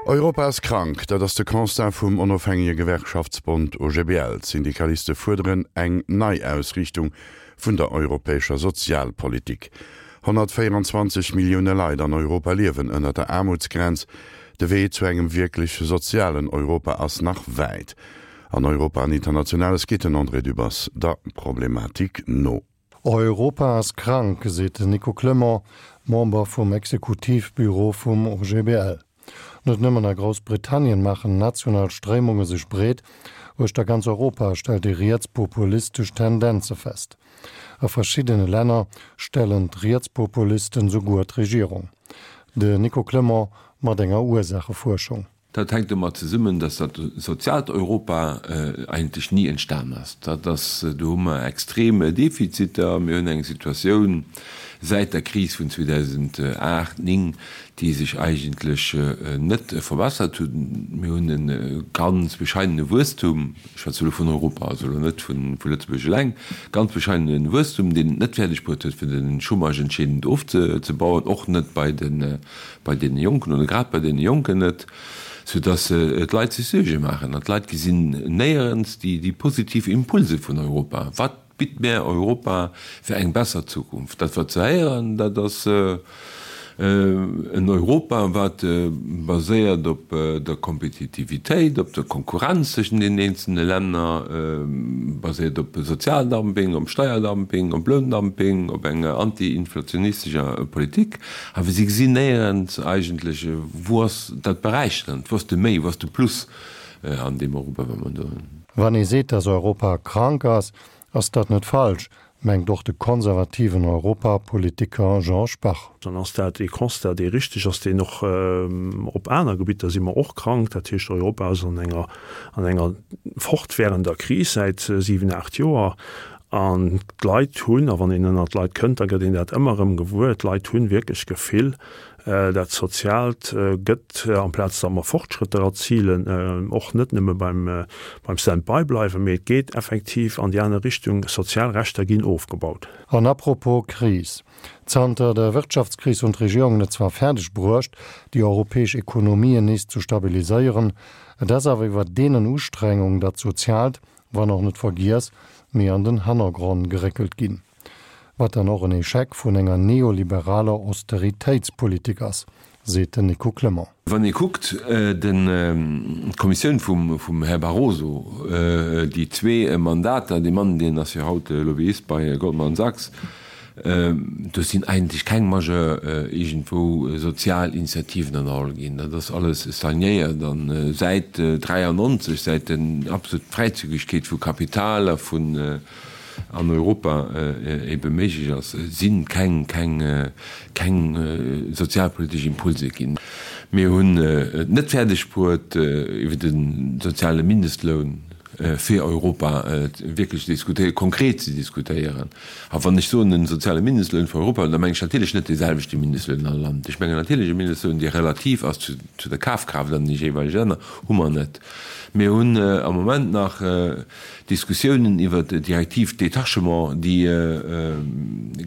Europa ass krank, dat ass de Constat vum onofhängege Gewerkschaftsbond OGBL. D'Syndikaliste fuerderen eng Neiausriichtung vun der europäescher Sozialpolitik. 124 Millioune Leit an Europa liewen ënner der Aarmutsgrenz. De Wee zu engem wierklech sozialen Europa ass nach wäit. An Europa an Internationales geet den André Dübbers der Problematik no. Europa ass krank, seet den Nico Clement, Member vum Exekutivbüro vum OGBL. Net nëmmen a Groussbritannien maachen national Stréimunge sech breet, uechter ganz Europa stellt ee rietspopulistesch Tendenze fest. A verschiddene Länner stellen d'Rietspopulisten souguer d'Regierung. De Nico Clement mat enger Ursaachefuerschung. Dat hänkt domat zesummen, dass dat soziaalt Europa eigentlech ni entstan ass. Dat ass, do hu mer extrem Defiziter. Mir hunn eng Situatioun säit der Kris vun 2008, 9, déi sech eigentlech net verbessert huet. Mir hunn e ganz bescheidene Wuesstum, ech schwätze elo vun Europa, also elo net vu Lëtzebuerg eleng, ganz bescheidene Wuesstum, deen et net fäerdeg bruet huet, fir de Chômage entscheedend ofzebauen, och net bei de bei deene Jonken oder grad bei deene Jonken net, soudass d'Leit sech Suerge maachen. An d'Leit gesinn néierens déi positiv Impulse vun Europa. Wat bitt mär Europa fir eng besser Zukunft? Dat wat se héieren, dat ass en Europa, wat baséiert op der Kompetitivitéit, op der Konkurrenz tëschent den eenzelne Länner, baséiert op Sozialdumping, op Steierdumping, op Loundumping, op enger anti-inflationistescher Politik. Awer si gesinn néierens eigentlech, wou ass dat Beräicherend, wou ass de Méi, wou ass de Plus an deem Europa, wat mer do hunn. Wann ee seet, datt Europa krank ass, ass dat net falsch, mengt och de konservativen Europapolitiker Jean Spach. Dann ass dat ee Constat, dee richteg ass, deen och op aner Gebitter si mer och krank. Dat heescht, Europa ass an enger an enger fortwährender Kris säit 7, 8 Joer. An d'Leit hunn, a wann een ënnert d'Leit kënnt, da gëtt een dat ëmmer erëm gewuer, d'Leit hunn wierklech d'Gefill, dat Soziaalt gëtt, amplaz datt mer Fortschrëtter erzilen, och net nëmme beim Stand-by bleiwen, mee et geet effektiv an déi aner Richtung, sozial Rechter ginn ofgebaut. An apropos Kris, Zanter der Wirtschaftskris hunn d'Regierungen et zwar fäerdeg bruecht, déi europäesch Ekonomien nees ze stabiliséieren, et ass awer iwwer deenen Ustrengung dat Soziaalt, wann och net vergiess, mee an den Hannergronn geréckelt ginn. Wat dann och en Echec vun enger neoliberaler Austeritéitspolitik ass, seet den Nico Clement. Wann ee kuckt, d'Kommissioun vum Här Barroso, déi zwee Mandater, dee Mann, deen ass jo haut Lobbyist bei Goldman Sachs, Do sinn eigentlech keng majeur iergendwou sozial Initiativen ënnerholl ginn. Dat ass alles stagnéiert. A säit 93, säit den absolut Fräizügegkeet vu Kapital a vun an Europa ebe méiglech ass, si keng, keng, keng sozialpolitesch Impulse ginn. Mir hunn et net fäerdeg bruet, iwwer de soziale Mindestloun fir Europa wierklech ze diskutéieren, konkret ze diskutéieren. A wann ech soen en soziale Mindestloun fir Europa, da mengen ech natierlech net dee selwechte Mindestloun an all Land. Ech mengen natierlech e Mindestloun, dee relativ ass zu der Kafkraaft an de jeeweilege Länner. Hu mer net. Mir hunn am Moment nach Diskussiounen iwwert d'Direktiv Détachement, déi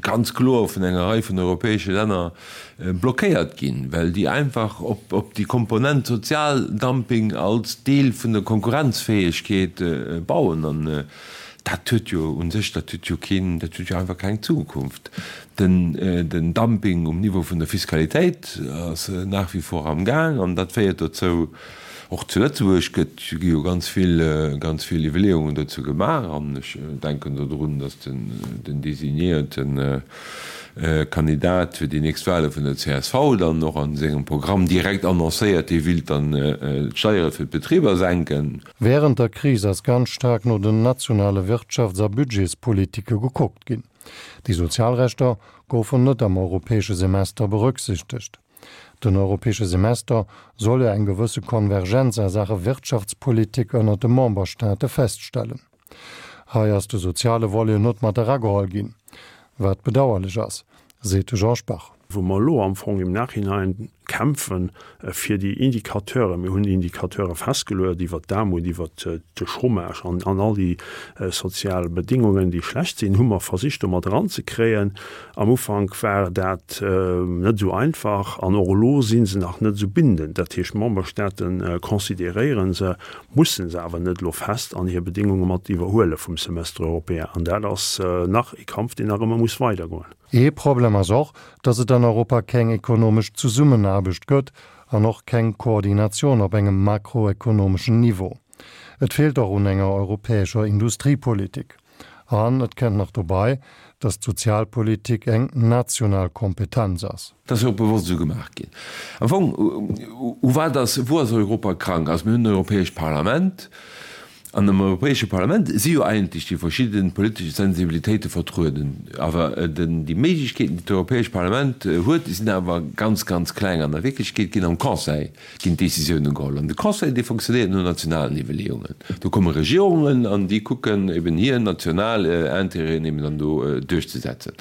ganz kloer vun enger Rei vun europäesche Länner blockéiert ginn, well déi einfach op déi Komponent Sozialdumping als Deel vun der Konkurrenzfäegkeet bauen. An dat huet jo u sech, dat huet jo keen, dat huet jo einfach keng Zukunft. Den Dumping um Niveau vun der Fiskalitéit ass nach wie vor am Gaang an dat féiert dozou, Och zu Lëtzebuerg gëtt, gi jo ganz vill, ganz vill Iwwerleeungen dozou gemaach an ech denken do drun, datt den, den designéierte Kandidat fir déi nächst Wahle vun der csv dann och a sengem Programm direkt annoncéiert, hie willt dann d'Steiere fir d'Betriber senken. Wärend der Kris ass ganz staark no den nationale Wirtschafts a Budgetspolitike gekuckt ginn. Déi sozial Rechter goufen net am europäesche Semester berücksichtegt. Den europäesche Semester soll jo eng gewësse Konvergenz a Saache Wirtschaftspolitik ënnert de Memberstaate feststellen. Hei ass de soziale Volet net mat erageholl ginn, wat bedauerlech ass, seet de Jean Spach. Wou mer elo am Fong im Nachhinein. kämpfen fir déi Indicateuren. Mir hunn Indicateure festgeluecht iwwert d'Aarmut, iwwert de Chômage an all déi sozial Bedingungen, déi schlecht sinn, hu mer versicht do mat eranzekréien. Am Ufank war dat net esou einfach an och elo si se nach net esou bindend. Dat heescht, d'Memberstaate consideréiere se, musse se awer net elo fest an hir Bedingunge mat iwwerhuele vum Semestre européen. An dat ass nach ee Kampf, deen nach ëmmer muss weidergoen. Ee Problem ass och, datt et an Europa keng ekonomesch Zesummenaarbecht gëtt an och keng Koordinatioun op engem makroekonomeschen Niveau. Et feelt och un enger europäescher Industriepolitik. An et kënnt nach dobei, datt d'Sozialpolitik eng national Kompetenz ass. Dat ass jo och bewosst esou gemaach ginn. Am Fong, u wat ass, wou ass Europa krank? Also mir hunn en Europäescht Parlament. An am Europäesche Parlament si jo eigentlech déi verschidde politesch Sensibilitéite vertrueden. Awer déi Méiglechkeeten, déi d'Europäescht Parlament huet, déi sinn awer ganz, ganz kleng. An a Wierklechkeet ginn am Conseil ginn d'Décisiounen geholl. An de Conseil, dee fonctionnéiert no nationalen Iwwerleeungen. Do komme Regierungen an déi kucken eben hir national Intérêten eben dann do duerchzesetzen.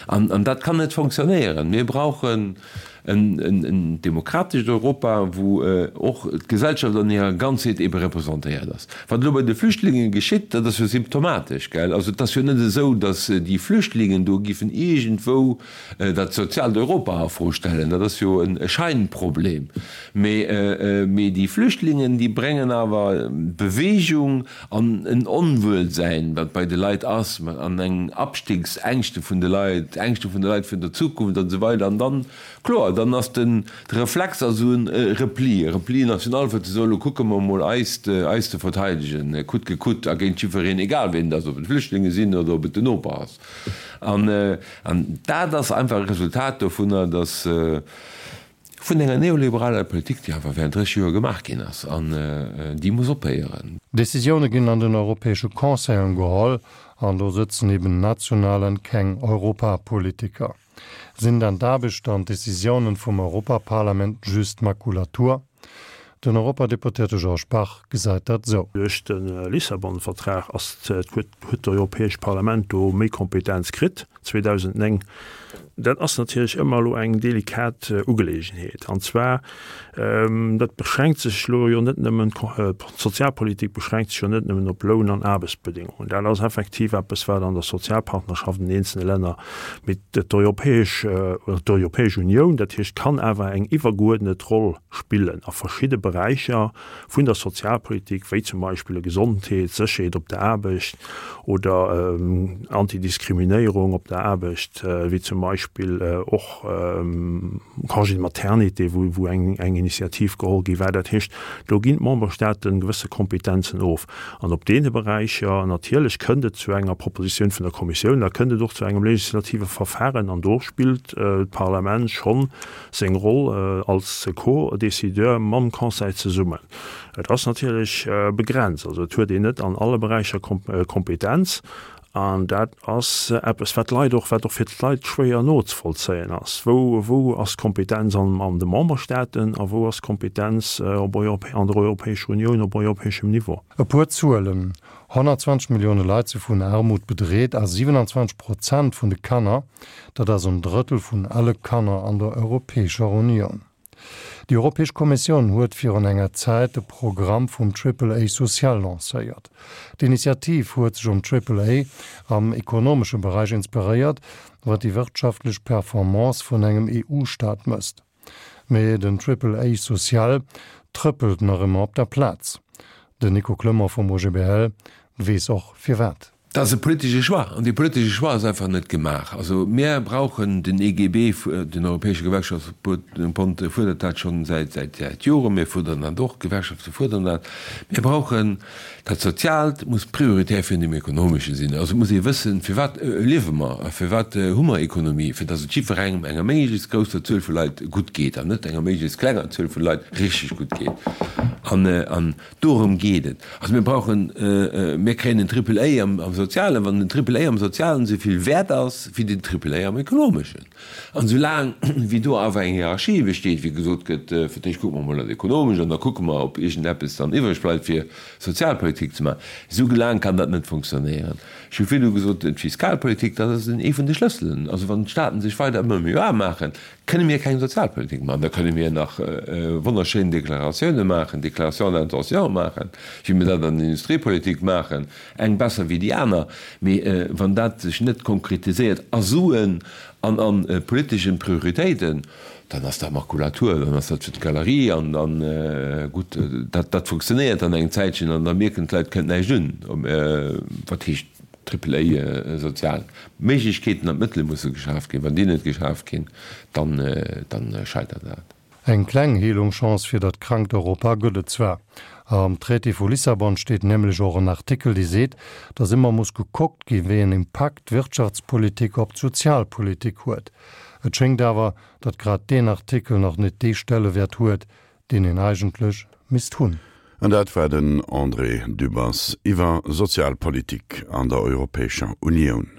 An dat kann net fonctionnéieren. Mir brauchen En demokratescht Europa, wou och d'Gesellschaft an hirer Ganzheet ebe representéiert ass. Wat elo bei de Flüchtlingen geschitt, dat ass jo symptomatesch, gell? Also et ass jo net esou, datt déi Flüchtlingen do giffen iergendwou dat soziaalt Europa a Fro stellen. Dat ass jo e Scheinproblem. Mee déi Flüchtlingen, déi bréngen awer Bewegung an en Onwuelsäin, wat bei de Leit ass, an eng Abstiegsängschte vun de Leit, Ängschte vun de Leit vun der Zukunft an esou weider. An dann, kloer, dann ass den de Reflex ass esou e Repli, e Repli national, fir ze soen, elo kucke mer emol eis eis ze verteidegen, coûte que coûte a géint jiddwereen, egal wien et ass, ob et Flüchtlinge sinn oder ob et den Noper ass. An dat ass einfach e Resultat dovunner, dass, Vun enger neoliberaler Politik, déi einfach während 30 Joer gemaach ginn ass, an déi muss ophéieren. Decisioune ginn an den europäesche Conseilen geholl, an do sëtzen eben national an keng Europapolitiker. Sinn dann d'Aarbecht an d'Decisiounen vum Europaparlament just Makulatur? Den Europadeputéierte Georges Bach gesäit dat esou. Duerch de Lissabon-Vertrag ass huet d'Europäescht Parlament do méi Kompetenz kritt. 2009. Dat ass natierlech ëmmer elo eng delikat Ugeleegenheet. An zwar, dat beschränkt sech elo jo net nëmmen, d'Sozialpolitik beschränkt sech jo net nëmmen op Loun an Aarbechtsbedingungen. Dat ass effektiv eppes, wat an der Sozialpartnerschaft an den eenzelne Länner, mee d'Europäesch, oder d'Europäesch Unioun, dat heescht, kann awer eng iwwergeuerdnet Roll spillen a verschidde Beräicher vun der Sozialpolitik, wéi zum Beispill Gesondheet, Sécherheet op der Aarbecht oder Antidiskriminéierung op der Aarbecht, wéi zum Beispill och Congé de maternité, wou eng Initiativ geholl gi war. Dat heescht, do ginn d'Memberstaaten gewësse Kompetenzen of. An op deene Beräicher, natierlech kënnt et zu enger Propositioun vun der Kommissioun, da kënnt et och zu engem legislative Verfahren an do spillt d'Parlament schonn seng Roll als Co-Décideur mam Conseil zesummen. Et ass natierlech begrenzt, also et huet een net an alle Beräicher Kompetenz an dat ass eppes, wat d'Leit och, wat och fir d'Leit schwéier nozevollzéien ass. Wou, wou ass d'Kompetenz an an de Memberstaaten a wou ass d'Kompetenz op an der Europäescher Unioun op europäeschem Niveau? E puer Zuelen, 120 Millioune Leit si vun Aarmut bedreet a 27 Prozent vun de Kanner, dat ass en Drëttel vun alle Kanner an der Europäescher Unioun. Déi Europäesch Kommissioun huet virun enger Zäit de Programm vum Triple A social lancéiert. D'Initiativ huet sech um Triple A am ekonomesche Beräich inspiréiert, wat déi wirtschaftlech Performance vun engem EU-Staat mësst. Mee den Triple A social trëppelt nach ëmmer op der Plaz. Den Nico Clement vum OGBL weess och firwat. Dat ass e politesche Choix, an dee politesche Choix ass einfach net gemaach. Also mir brauchen den EGB, den Europäesche Gewerkschaftsbond fuerdert dat schonn säit säit Joren, mir fuerderen dat och, d'Gewerkschafte fuerderen dat. Mir brauchen Dat Soziaalt muss prioritär virun dem Ekonomesche sinn. Also et muss ee wëssen, firwat liewe mer a firwat hu mer Ekonomie, fir datt et jiddwerengem, enger méiglechst grousser Zuel vu Leit gutt geet an net enger méiglechst klenger Zuel vu Leit richteg gutt geet. An, an dorëm geet et. Also mir brauchen, mir kréien en Triple A am, am. Sozialen, wann den Triple A am Sozialen esou vill wäert ass wéi den Triple A am Ekonomeschen. An esou laang wéi do awer eng Hierarchie besteet, wéi gesot gëtt, fir d'éischt kucke mer emol dat Ekonomescht an da kucke mer, ob iergendeppes dann iwwreg bleift fir Sozialpolitik ze maachen, esou laang kann dat net funktionéieren. Ech hu virdu gesot, d'Fiskalpolitik, dat ass ee vun de Schlësselen. Also wann d'Staaten sech weider ëmmer méi aarm maachen, kënne mir keng Sozialpolitik maachen. Da kënne mir nach wonnerschéin Deklaratioune maachen, Déclarations d'intention maachen, wéi mir dat an der Industriepolitik maachen, eng besser wéi déi aner, mee wann dat sech net konkretiséiert a Suen an a politeschen Prioritéiten, dann ass dat Makulatur, dann ass dat fir d'Galerie an dann, gutt, dat dat funktionéiert dann eng Zäitchen an da mierken d'Leit, kënnt näischt un. Wat heescht Triple A sozial? D'Méiglechkeeten an d'Mëttele musse geschaf ginn. Wann déi net geschaf ginn, dann dann scheitert dat. Eng kleng Heelungschance fir dat krankt Europa gëtt et zwar. Am Traité vu Lissabon steet nämlech och en Artikel, dee seet, datt ëmmer muss gekuckt gi wéi en Impakt d'Wirtschaftspolitik op d'Sozialpolitik huet. Et schéngt awer, datt grad deen Artikel nach net dee Stellewäert huet, deen en eigentlech misst hunn. An dat war den André Dübbers iwwer Sozialpolitik an der Europäescher Unioun.